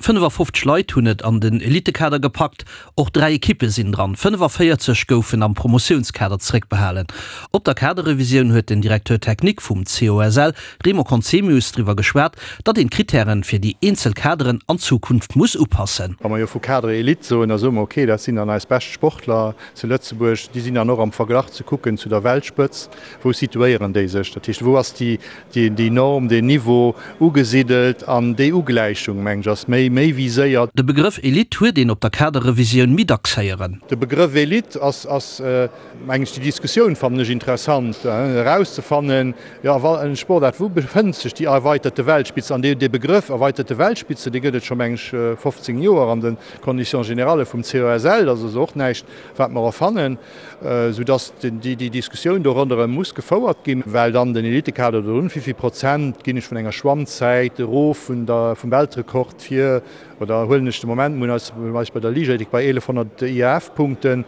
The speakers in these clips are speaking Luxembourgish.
55 Leit hunn et an den Elitekader gepackt, och 3 Ekippe sinn dran. 45 goufen am Promotiounskader zeréckbehalen. Op der Kaderrevisioun huet den Directeur technique vum COSL, Remo Conzemius, driwwer geschwat, datt een d'Krittären fir déi eenzel Kaderen an Zukunft muss upassen. Wa mer jo vu Cadre Elite soen, da soe mer, okay, dat sinn dann eis bescht Sportler zu Lëtzebuerg, déi sinn dann och am Verglach ze kucken zu der Weltspëtzt. Wou situéieren déi sech? Dat heescht, wou ass déi Norm, deen Niveau ugesidelt? An déi Ugläichung, mengen ech, ass méi méi viséiert. De Begrëff Elite huet een op der Kaderrevisioun méi dacks héieren. De Begrëff Elite ass, ass mengen ech, déi Diskussioun fannen ech interessant, erauszefannen, jo, a wa en Sportaart, wou befënnt sech déi erweiterte Weltspitze? An dee Begrëff erweiterte Weltspitze, dee gëtt et scho, mengen ech, 15 Joer an de Conditions générales vum COSL. Dat ass also och näischt, wat mer erfannen, soudass déi Diskussioun do ronderëm muss gefouert ginn, well dann den Elitekader do drun, wéivill Prozent ginn ech vun enger Schwammzäit erof vun der, vum Weltrekord fir, oder huelen ech de Moment, mir hunn eis eis bei der Liichtathletik bei 1.100 IAAF-Punkte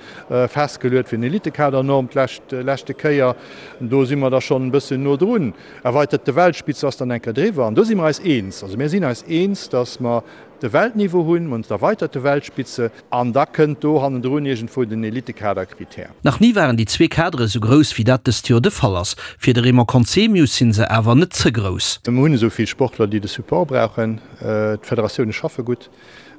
festgeluet fir den Elitekadernorm d'lescht leschte Kéier, do si mer da schonn e bëssen no drun. Erweiterte Weltspitze ass dann eng Kéier driwwer an do si mer eis eens. Also mir sinn eis eens, dass mer de Weltniveau hunn, mer hunn d'erweiterte Weltspitze an da kënnt do hannendrun iergendwou den Elitekaderkritär. Nach ni waren déi zwee Kadere sou grouss, wéi dat dëst Joer de Fall ass. Fir de Raymond Conzemius sinn se awer net ze grouss. Mer hunn esou vill Sportler, déi de Support brauchen. D'Federatioune schaffe gutt.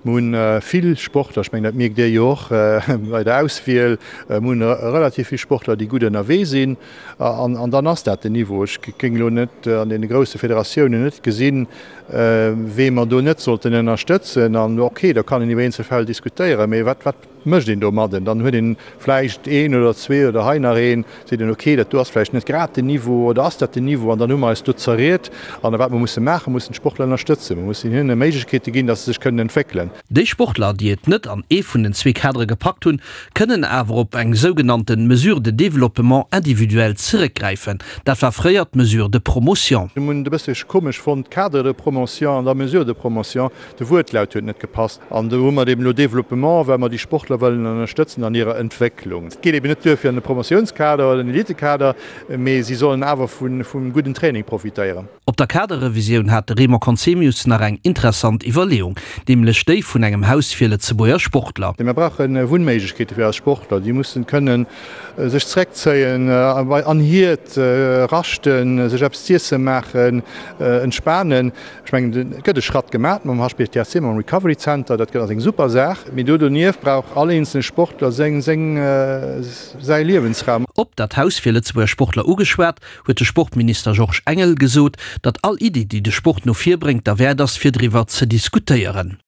Mer hunn vill Sportler, ech mengen dat mierkt Dir jo och bei der Auswiel, mer hunn relativ vill Sportler, déi gutt ënnerwee sinn an dann ass dat den Niveau. Ech géing elo net an deene grousse Federatiounen net gesinn, wee mer do net sollten ënnerstëtzen. An ok, da kann een iwwer eenzel Fäll diskutéieren, mee wat, wat mécht een domadden? Dann huet een vläicht een oder zwee oder hei nach een, seet een, ok, dat do ass vläicht net grad den Niveau oder ass dat den Niveau? An dann hu mer eis do zerriet. An wat mer musse maachen, mussen d'Sportler ënnerstëtzen. Mer mussen hinne Méiglechkeete ginn, datt se sech kënnen entwéckelen. Déi Sportler, déi et net an ee vun den zwee Kadere gepackt hunn, kënnen awer op eng sougenannte Mesure de développement individuel zeréckgräifen. Dat war fréier d'Mesure de promotion. Mir hunn et e bëssche komesch fonnt, Cadre de promotion an da Mesure de promotion, de Wuertlaut huet net gepasst. An do hu mer et eben elo Développement, well mer déi Sportler wëllen ënnerstëtzen an hirer Entwécklung. Et geet eben net duer fir an de Promotiounskader oder den Elitekader, mee si sollen awer vum gudden Training profitéieren. Op der Kaderrevisioun hat de Raymond Conzemius nach eng interessant Iwwerleeung, nämlech déi vun engem Haus fir Lëtzebuerger Sportler. Mir brauche Wunnméiglechkeete fir eis Sportler. Déi mussen kënnen sech zeréckzéien, an hiert raschten, sech eppes z'iesse maachen, entspanen. Ech mengen, et gëtt e Schratt gemaach mam HPTRC, mam Recovery Center. Dat ass eng super Saach. Mee do donieft brauch all eenzelne Sportler seng, seng, säi Liewensraum. Op dat Haus fir Lëtzebuerger Sportler ugeschwat, huet de Sportminister Georges Engel gesot, datt all Iddi, déi de Sport no vir bréngt, derwäert ass, fir driwwer ze diskutéieren.